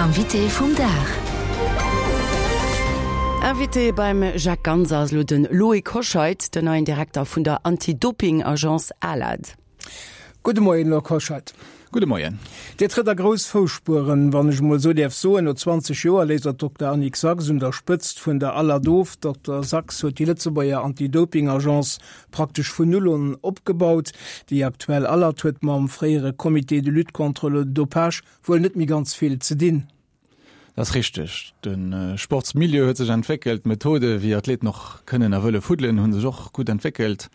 Invité vum Dag. Invité beim Jacques Ganser ass elo de Loïc Hoscheit, den neien Direkter vun der Anti-Doping-Agence ALAD. Gudde Moien, Loïc Hoscheit. Gudde Moien. Dir trëtt a grouss Fousspueren, wann ech emol esou däerf soen. No 20 Joer léisst Der d'Dokter Annick Sachs un der Spëtzt vun der ALAD of. D'Dokter Sachs huet déi Lëtzebuerger Anti-Doping-Agence praktesch vun Null un opgebaut. Déi aktuell ALAD huet mam fréiere Comité de lutte contre le dopage wuel net méi ganz vill ze dinn. Dat ass richteg. De Sportsmilieu huet sech entwéckelt, d'Methode wéi Athleten och kënnen a wëlle fuddelen, hu sech och gutt entwéckelt.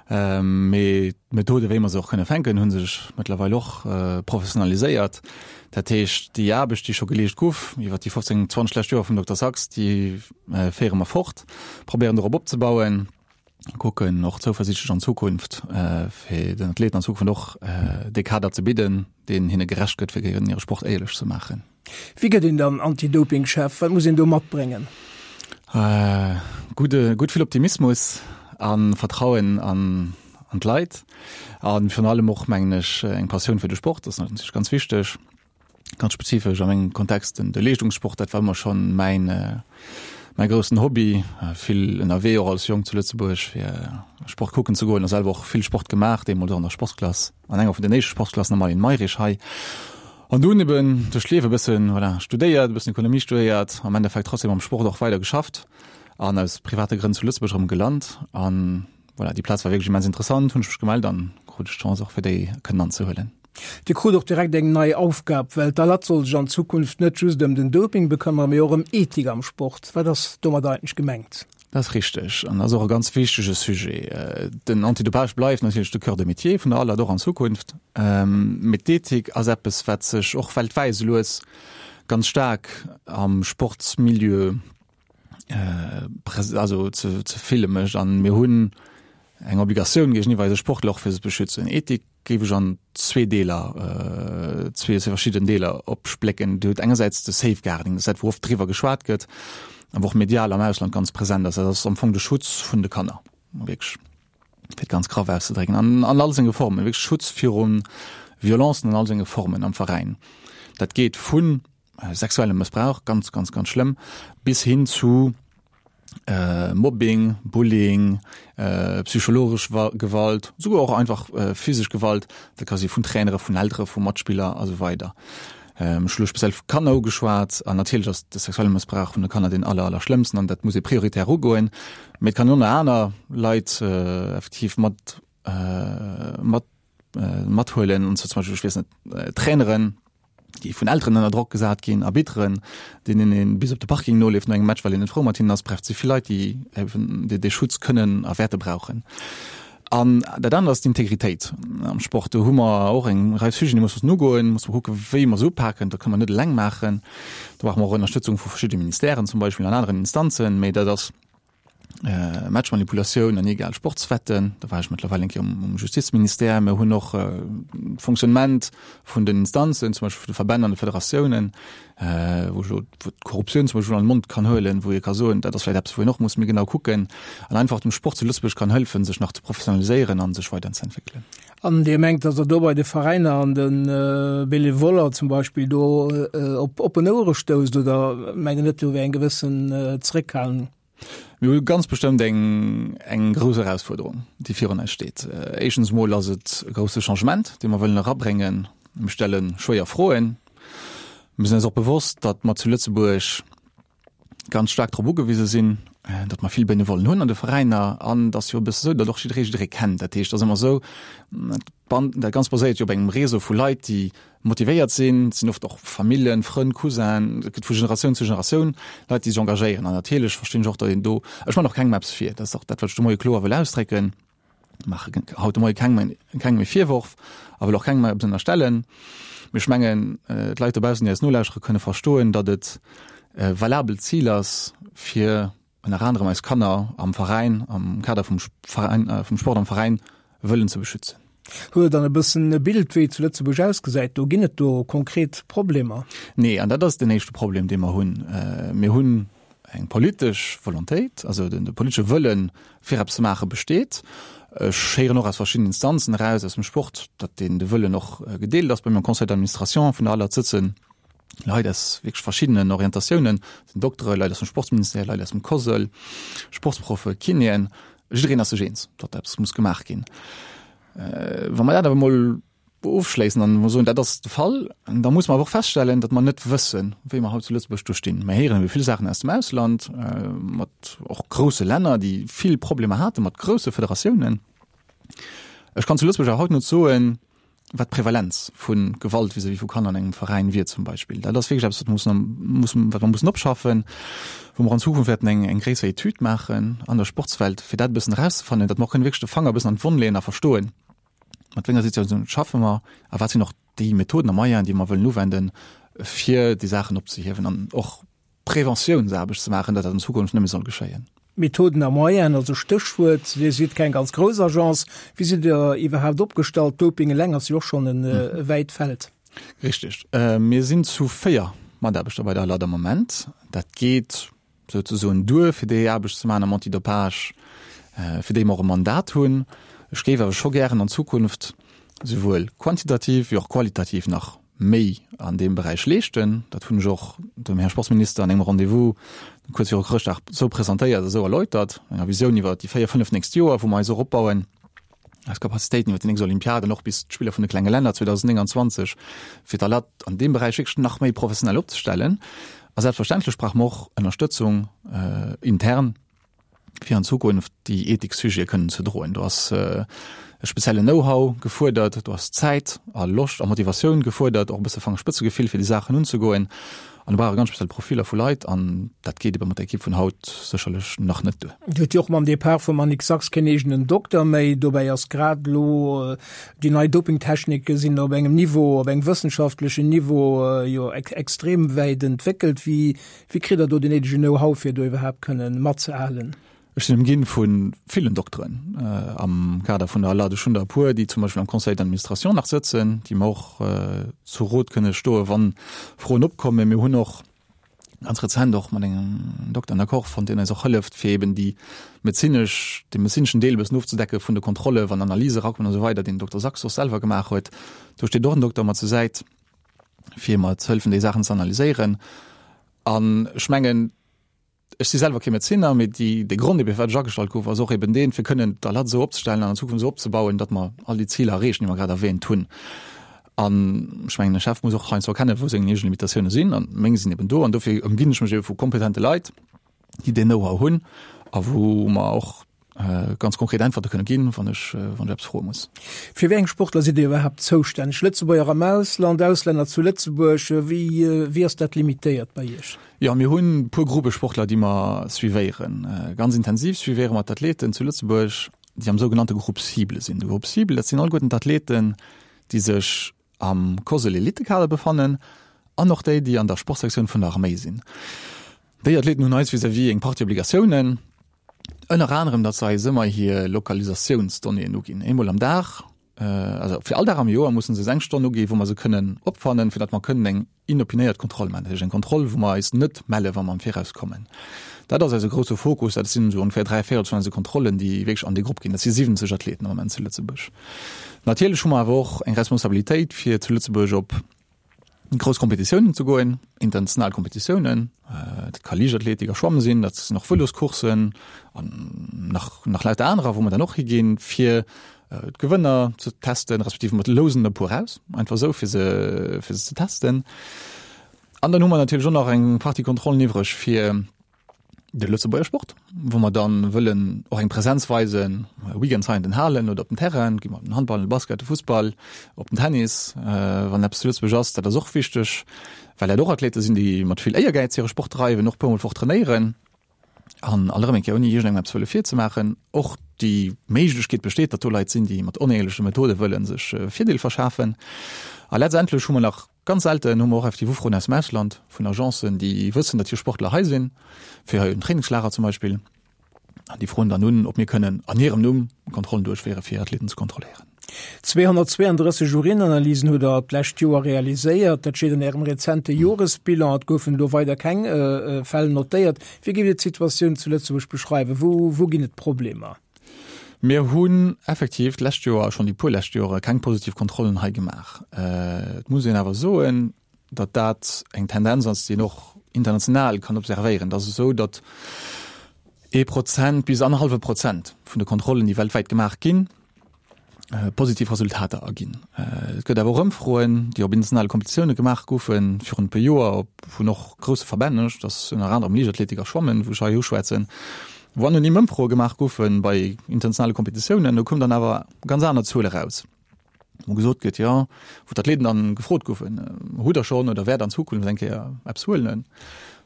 Mee d'Methode wéi mer se och kënne fänken, hu sech mëttlerweil och professionaliséiert. Dat heescht, déi Aarbecht, déi scho geleescht guff iwwer déi 15, 20 lescht Joer vum Dokter Sachs, déi féiere mer fort, probéieren dorop opzebauen. kucken och zouversiichtlech an Zukunft äh, fir den Athleten an Zukunft och äh, dee Kader ze bidden, deen hinne gerecht gëtt, fir hire Sport éierlech ze maachen. Wéi gëtt een dann Anti-Doping-Chef? Wat muss een do matbréngen? Äh, gudde, gutt vill Optimismus a Vertrauen an, an d'Leit a virun allem och, mengen ech, eng Passioun fir de Sport, dat ass natierlech ganz wichteg. Ganz spezifesch a mengem Kontext den de Leeschtungssport, dat war ëmmer schonn mäin mäi groussen Hobby. Vill ënnerwee och als Jong zu Lëtzebuerg fir Sport kucken ze goen a selwer och vill Sport gemaach, deemools och an der Sportsklass, an enger vun den éischte Sportsklassen am Marlene Mayrisch hei. An dunn eben duerch d'Liewe e bëssen, voilà, studéiert, e bëssen Ekonomie studéiert, am Endeffekt trotzdem am Sport och weider geschafft an aus private Grënn zu Lëtzebuerg erëm gelant. An voilà, déi Plaz war wierklech immens interessant, hunn ech mech gemellt an krut ech d'Chance och fir déi kënnen anzehuelen. Dir krut och direkt eng nei Aufgab, well d'ALAD soll sech an Zukunft net just ëm den Doping bekëmmere, mee och ëm Ethik am Sport. Wat ass domat eigentlech gemengt? Dat ass richteg an ass och e ganz wichtege Sujet. Den Antidopage bleift natierlech de Cœur de métier vun der ALAD och an Zukunft, mee d'Ethik ass eppes, wat sech och weltwäit esou lues ganz staark am Sportsmilieu also ze ze fille mécht. An mir hunn eng Obligatioun géigeniwwer eise Sportler och fir se ze beschützen. Ethik géif ech an zwee Deeler, zwee verschidden Deeler opsplécken. Dir hutt engersäits de Safeguarding, dat ass dat, wou oft driwwer geschwat gëtt a wou och medial am Ausland ganz present ass. Dat ass am Fong de Schutz vun de Kanner, wierklech, fir et ganz graff auszedrécken, an an all senge Formen, wierklech Schutz viru Violencen an all senge Formen am Veräin. Dat geet vun sexuellem Mëssbrauch, ganz, ganz, ganz schlëmm, bis hin zu äh, Mobbing, Bullying, äh, psychologesch Gewalt, souguer och einfach äh, physesch Gewalt, dat ka si vun Trainere, vun Eltere, vu Matspiller a sou weider. Ähm, ech hu speziell vu Kanner ugeschwat an natierlech ass de sexuelle Mëssbrauch vun de Kanner deen aller, aller schlëmmsten an dat muss ee prioritär ugoen. Mee et kann och nach aner Leit äh, effektiv mat, äh, mat mathuelen, und zwar zum Beispiel, ech weess net, Traineren, déi vun Elteren ënner Drock gesat ginn, Arbitteren, deenen ee bis op de Parking noleeft no engem Match, well een net frou mat hinnen ass. Bref, et si vill Leit, déi eben dee Schutz kënnen a wäerte brauchen. An dat anert ass d'Integritéit am Sport. Do hu mer och eng Rei Sujeten, déi mussen ugoen, musse mer kucken, wéi mer se upaken. Dat kënne mer net eleng maachen. Do brauche mer och Ënnerstëtzung vu verschidde Ministèren zum Beispill an aneren Instanzen. Mee dat ass Matchmanipulatioun an illegal Sportswetten, do war ech mëttlerweil eng Kéier um Justizministère. Mir hunn och d'Fonctionnement vun den Instanzen, zum Beispill vun de Verbänn an de Federatiounen, wou ech elo d'Korruptioun zum Beispill an de Mond kann huelen, wou ee ka soen, dat ass vläicht eppes, wou een och muss méi genau kucken an einfach dem Sport zu Lëtzebuerg kann hëllefen, sech nach ze professionaliséieren a sech weiderzeentwéckelen. An Dir mengt, datt Der do bei de Veräiner an de Benevoller zum Beispill do op oppen Ouere stousst oder mengt Der net, do wär eng gewëssen Zréckhalung? Mir hu ganz bestëmmt eng, eng grouss Erausfuerderung, déi virun eis steet. Éischtens emol ass et e grousse Changement, dee mer wëllen erabréngen. Mir stelle schwéier Froen. Mir sinn eis och bewosst, datt mer zu Lëtzebuerg ganz staark drop ugewise sinn, datt mer vill Benevollen hunn an de Veräiner. An et ass jo e bësse esou, datt och jidderee jidderee kennt. Dat heescht, et ass ëmmer esou, dat Ganzt baséiert jo op engem Réseau vu Leit, déi motivéiert sinn. Et sinn oft och Familljen, Frënn, Cousinen, et gëtt vu Generatioun zu Generatioun Leit, déi sech engagéieren. An natierlech verstinn ech och, datt een do, ech man och kengem eppes vir, dat ass och dat, wat ech de Moie kloer wëll ausdrécken, maache haut de Moie kengem kengem e Virworf a wëll och kengem eppes ënnerstellen. Mee ech mengen, d'Leit dobaussen, déi eis nolauschtere, kënne verstoen, datt et e valabelt Zil ass, fir ënner anerem eis Kanner am Veräin, am Kader vum Veräin, vum Sport am Veräin wëllen ze beschützen. Hutt Der dann e bëssen e Bild, wéi et zu Lëtzebuerg ausgesäit? Do ginn et do konkret Problemer? Nee, an dat ass den éischte Problem, dee mer hunn. Mir hunn eng politesch Volontéit, also de politesche Wëllen, fir eppes ze maachen, besteet. Ech héieren och aus verschiddenen Instanzen eraus aus dem Sport, datt deen de Wëllen och gedeelt ass. Bei mir am Conseil d'administration vun der ALAD sëtzen. Leit aus wierklech verschiddenen Orientatiounen, sinn Doktere, Leit aus dem Sportsministère, Leit aus dem COSL, Sportsproffe, Kinéen, jiddereen ass sech eens, datt eppes muss gemaach ginn. Wa mer dat awer emol ofschléissen an emol soen, dat ass de Fall, da muss mer awer och feststellen, datt mer net wëssen, wéi mer haut zu Lëtzebuerg do stinn. Mer héieren ebe vill Saachen aus dem Ausland, mat och grousse Länner, déi vill Problemer hate mat grousse Federatiounen. Ech kann zu Lëtzebuerg awer haut net soen, wat d'Prevalenz vu Gewalt vis-à-vis vu Kanner an engem Veräin wier zum Beispill. Dat ass wierklech eppes, wat mussen, mussen, wat mer mussen opschaffen, wou mer an Zukunft wäerten eng, eng gréisser Etüd maachen an der Sportswelt, fir dat e bëssen erauszefannen, datt mer och kënnen wierklech de Fanger e bëssen an d'Wonn leeën a verstoen, mat wéi enger Situatioun schaffe mer a wat sinn och déi Methoden a Moyenen, déi mer wëllen uwenden, fir déi Saachen opzehiewen an och Preventiounsaarbecht ze maachen, datt dat an Zukunft net méi soll geschéien. Methoden a Moyenen, also Stéchwuert, Dir sidd keng ganz grouss Agence. Wéi sidd Der iwwerhaapt opgestallt? Doping eleng ass jo och schonn e wäit Feld. Richteg. Mir sinn zu 4 Mataarbechter bei der ALAD am Moment. Dat geet souzesoen duer, fir déi Aarbecht ze maachen am Antidopage, fir déi mer och e Mandat hunn. Ech géif awer scho gären an Zukunft souwuel quantitativ wéi och qualitativ nach méi an deem Beräich leeschten. Dat hunn ech och dem Här Sportsminister an engem Rendez-vous kuerz viru Chrëschtdag esou presentéiert a esou erläutert, enger Visioun iwwer déi 4, 5 nächst Joer, wou mer eis och opbauen, eis Capacitéiten iwwer déi nächst Olympiad an och bis d'Spiller vun de klenge Länner 2029, fir d'ALAT an deem Beräich wierklech nach méi professionell opzestellen. A selbstverständlech brauche mer och Ënnerstëtzung intern, fir an Zukunft déi Ethiksujete kënnen ze droen. Do ass e speziellen Know-how gefuerdert, do ass Zäit a Loscht a Motivatioun gefuerdert, och e bësse Fangerspëtzegefill fir déi Saachen unzegoen. An do brauch e ganz speziell Profiller vu Leit an dat geet ebe mat der Ekipp vun haut sécherlech nach net duer. Dir hutt jo och mam Depart vum Annick Sachs keen eegenen Dokter méi. Dobäi ass grad elo déi nei Dopingtechnike sinn op engem Niveau, op engem wëssenschaftlechen Niveau jo extrem wäit entwéckelt. Wéi Wéi kritt der do den néidegen Know-how fir do iwwerhaapt kënnen matzehalen? Ech sinn ëmginn vu villen Dokteren am Kader vun der ALAD. Ech hunn der e puer, déi zum Beispill am Conseil d'administration nach sëtzen, déi mer och zu Rot kënne stoen, wann Froen opkommen. Mir hunn och ganz rezent och mat engem Dokter en Accord fonnt, deen eis och hëlleft, fir eben déi medezinesch, dee medezineschen Deel e bëssen ofzedecken vun de Kontrolle, wann Analyse erakommen a sou weider, deen den Dokter Sachs och selwer gemaach huet. Do steet och en Dokter mat zur Säit. fir mer ze hëllefen, déi Saachen ze analyséieren. An ech mengen, ech si selwer kee Medezinner, mee déi, de Grond ebe firwat ech agestallt gouf, ass och eben deen, fir kënnen d'ALAD esou opzestellen an an Zukunft esou opzebauen, datt mer all déi Ziler erreechen, déi mer grad erwähnt hunn. An ech mengen, e Chef muss och heiansdo erkennen, wou seng eegen Limitatioune sinn, an meng sinn eben do. An dofir ëmginn ech mech ebe vu kompetente Leit, déi deen Know-how hunn a wou mer och ganz konkret Äntwerte kënne ginn, wann ech, wann ech eppes froe muss. Fir wéi eng Sportler sidd Dir iwwerhaapt zoustänneg? Lëtzebuerger am Ausland, Auslänner zu Lëtzebuerg, wéi, wéi ass dat limitéiert bei Iech? Jo, mir hunn e puer Gruppe Sportler, déi mer suivéieren. Ganz intensiv suivéiere mer d'Athleten zu Lëtzebuerg, déi am sougenannte Groupe cible sinn. De Groupe cible, dat sinn alleguerten d'Athleten, déi sech am COSL Elitekader befannen an och déi, déi an der Sportsektioun vun der Arméi sinn. Déi Athleten hunn eis vis-à-vis eng Partie Obligatiounen, ënner anerem, datt se eis ëmmer hir Lokalisatiounsdonnéeën uginn, eemol am Dag, also fir all Dag am Joer mussen se eis eng Stonn uginn, wou mer se kënnen opfannen, fir datt mer kënnen eng inopinéiert Kontroll maachen, dat heescht eng Kontroll, wou mer eis net melle wa mer am Viraus kommen. Dat ass eise grousse Fokus, dat sinn esou ongeféier 3 Véirels vun eise Kontrollen, déi wierklech an déi Grupp ginn. Dat si 70 Athleten am Moment zu Lëtzebuerg. Natierlech hu mer awer och eng Responsabilitéit, fir zu Lëtzebuerg op grouss Kompetitiounen ze goen, international Kompetitiounen. Dat ka Liichtathletik a Schwamme sinn, dat sinn och Vëloscourssen an nach, nach lauter anerer, wou mer dann och higinn, fir d'Gewënner ze testen, respektiv mer lousen e puer aus, einfach esou, fir se, fir se ze testen. An dann hu mer natierlech och nach eng Partie Kontrollen iwwreg fir de Lëtzebuerger Sport, wou mer dann wëllen och eng Präsenz weisen, Weekends hei an den Halen oder op den Terrainen, gi mer op den Handball, den Basket, de Fussball, op den Tennis, wann eppes zu Lëtzebuerg ass. Dat ass och wichteg, well dat och Athlete sinn, déi mat vill Éiergäiz hire Sport dreiwen, och e puermol d'Woch trainéieren. An alt erëm eng Kéier, ouni iergendengem eppes wëlle virzemaachen, och déi Méiglechkeet besteet, datt do Leit sinn, déi mat onéierleche Methode wëlle sech e Virdeel verschafen. A letztendlech hu mer nach, ganz selten hu mer och effektiv Ufroen aus dem Ausland vun Agencen, déi wëssen, datt hir Sportler hei sinn, fir hei en Trainingslager zum Beispill. An déi froen dann un, ob mir kënnen an hirem Numm Kontrollen duerchféieren, fir Athleten ze kontrolléieren. 232 Urinanalysen hutt Der d'lescht Joer realiséiert. Dat steet an Ärem rezente Joresbilan. Et goufen elo weider keng Fäll notéiert. Wéi géift Dir d'Situatioun zu Lëtzebuerg beschreiwen? Wou, wou ginn et Problemer? Mir hunn effektiv d'lescht Joer, schonn déi puer lescht Jore keng positiv Kontrollen hei gemaach. Et muss een awer soen, datt dat eng Tendenz ass, déi een och international kann observéieren. Et ass esou, datt ee Prozent bis annerhallwe Prozent vun de Kontrollen, déi weltwäit gemaach ginn, positiv Resultater erginn. Et gëtt awer och Ëmfroen, déi op internationale Kompetitioune gemaach goufen virun e puer Joer, op vun och grousse Verbänn, dat ass ënner anerem Liichtathletik a Schwammen, wou ech hei uschwätzen, wou anonym Ëmfroe gemaach goufe bei internationale Kompetitiounen. Do koum dann awer ganz aner Zuele raus, wou gesot gëtt, jo, wou d'Athleten dann gefrot goufen, hutt Der schonn oder wäert an Zukunft eng Kéier eppes huelen?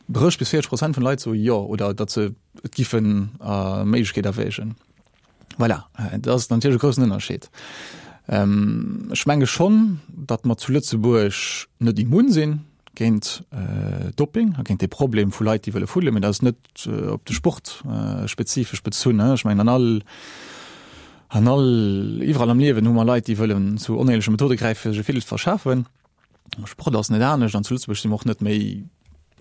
30 bis 40 Prozent vun de Leit soe jo oder datt se et giffen a Méiglechkeet erwägen. Voilà, dat ass natierlech e groussen Ënnerscheed. Ähm, ech menge schonn, datt mer zu Lëtzebuerg net immun sinn géint äh, Doping a géint de Problem vu Leit, déi wëlle fuddelen, mee dat ass net äh, op de Sport äh, spezifesch bezunn. Ech mengen an all an all iwwerall am Liewen hu mer Leit, déi wëllen zu onéierleche Methode gräifen, fir sech e Virdeel ze verschafen. Sport ass net anescht an zu Lëtzebuerg si mer och net méi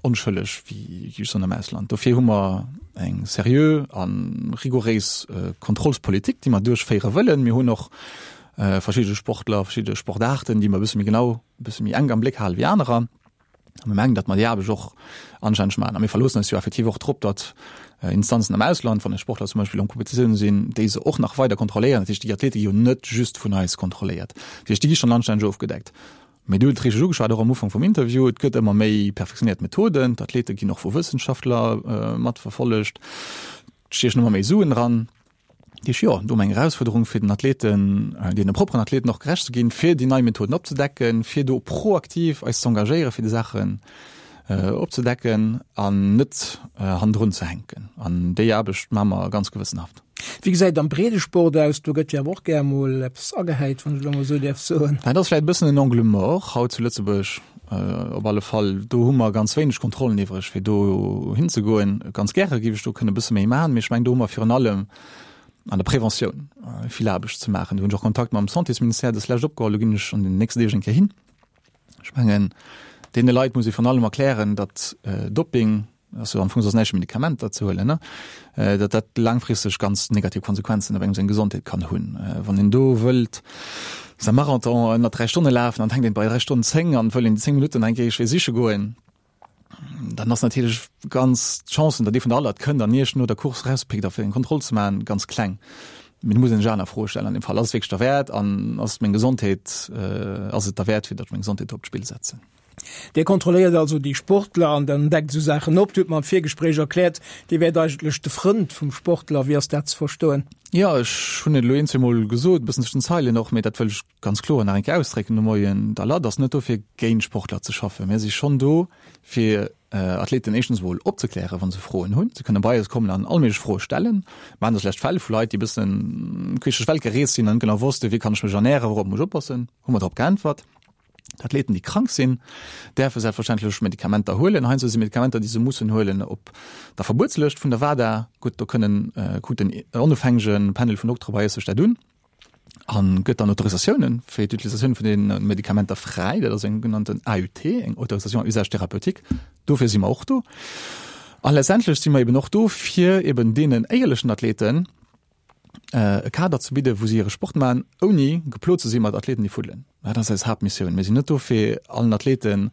onschëlleg wéi just an am Ausland. Dofir hu mer eng seriö a rigouréis äh, Kontrollspolitik, déi mer duerchféiere wëllen. Mir hunn och äh, verschidde Sportler, verschidde Sportarten, déi mer e bësse méi genau, e bësse méi enk am Bléck hale wéi anerer. A mir mengen, datt mer déi Aarbecht och anstänneg maachen. A mir verloossen eis jo effektiv och drop, datt äh, Instanzen am Ausland, wann eis Sportler zum Beispill an Kompetitiounen sinn, déi se och nach weider kontrolléieren. Dat heescht, déi Athlete gi jo net just vun eis kontrolléiert. Dat heescht, déi gi schonn anstänneg ofgedeckt. Mee du hutt et richteg ugeschwat, och am Ufank vum Interview, et gëtt ëmmer méi perfektionéiert Methoden, d'Athlete ginn och vu Wëssenschaftler matverfollegt, et stiechen ëmmer méi Suen dran. Dat heescht, jo, do hu mer eng Erausfuerderung fir den Athleten, deene propperen Athleten och gerecht ze ginn, fir déi nei Methoden opzedecken, fir do proaktiv eis ze engagéieren, fir déi Saachen opzedecken an net hannendrun ze hänken. An déi Aarbecht maache mer ganz gewëssenhaft. Wéi gesäit et am Breedesport aus? Do gëtt jo awer och gär mol eppes agehäit, wann ech elo mol esou däerf soen. Dat ass vläicht e bëssen en Angle mort haut zu Lëtzebuerg op alle Fall. Do hu mer ganz wéineg Kontrollen iwwreg, fir do hinzegoen. Ganz gäre géif ech do kënne e bësse méi maachen, mee ech mengen, do hu mer virun allem an der Preventioun vill Aarbecht ze maachen. Do hunn ech och Kontakt mam Santésministère dës Lescht opgeholl, do ginn ech an den nächsten Deeg eng Kéier hin. Ech mengen, deene Leit muss ee virun allem erklären, datt Doping, ass jo am Fong soss näischt wéi Medikamenter ze huelen, ne, datt dat laangfristeg ganz negativ Konsequenzen op engem seng Gesondheet kann hunn. Wann een do wëllt säi Marathon ënner 3 Stonne lafen an et hänkt een bei 3 Stonnen 10 an wëll een déi 10 Minutten eng Kéier siche goen, dann ass natierlech ganz d'Chancen, datt ee vun der Alert kënnt an Iech no der Course erauspickt a fir eng Kontroll ze maachen, ganz kleng. Mee do muss een sech aner Froe stellen an deem Fall. Ass et wierklech derwäert an ass meng Gesondheet, ass et derwäert, fir datt ech meng Gesondheet do op d'Spill setzen? Dir kontrolléiert also déi Sportler an dann deckt esou Saachen op. Dir hutt mer am Virgespréich erkläert, Dir wäert eigentlech de Frënd vum Sportler. Wéi ass dat ze verstoen? Jo, ech hunn et elo een, zweemol gesot, e bëssen zwëschen den Zeilen och, mee dat wëll ech ganz kloer nach eng Kéier ausdrécken de Moien, D'ALAD ass net do fir géint Sportler ze schaffen. Mir si schonn do fir Athleten éischtens emol opzeklären, wa se Froen hunn. Se kënne bei eis kommen an all méiglech Froe stellen. Mir haten dës lescht Fäll vu Leit, déi e bëssen queesch duerch d'Welt gereest sinn an net genau wossten, wéi kann ech mech ernären, wourop muss ech oppassen. Hu mer drop geäntwert. D'Athleten, déi krank sinn, däerfe selbstverständlech Medikamenter huelen. Heiansdo si Medikamenter, déi se mussen huelen, op der Verbuetslëscht vun der WADA. Gutt, do kënnen, kuckt en onofhängege Panel vun Doktere bei eis sech dat un a gëtt dann Autorisatiounen fir d'Utilisatioun vun deene Medikamenter fräi. Dat ass eng genannten AUT, eng Autorisation à usage thérapeutique. Dofir si mer och do. A letztendlech si mer eben och do, fir eben deenen éierlechen Athleten, e Kader ze bidden, wou si hire Sport maachen, ouni geplot ze si mat Athleten, déi fuddelen. Dat ass eis Haaptmissioun. Mir sinn net do, fir allen Athleten,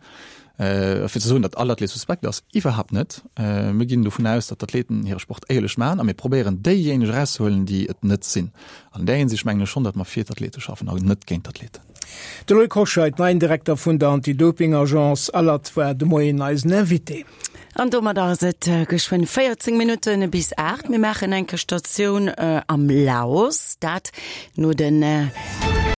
fir ze soen, datt all Athlet suspekt ass. Iwwerhaapt net. Mir ginn dovun aus, datt d'Athleten hire Sport éierlech maachen a mir probéieren, déijéineg erauszehuelen, déi et net sinn. An där Hinsicht mengen ech schonn, datt mer fir d'Athlete schaffen an net géint d'Athleten. De Loïc Hoscheit, neien Direkter vun der Anti-Doping-Agence ALAD, war de Moien eisen Invité. An domadder ass et geschwënn 14 Minutte bis 8. Mir maachen eng Statioun am Laos, dat no den.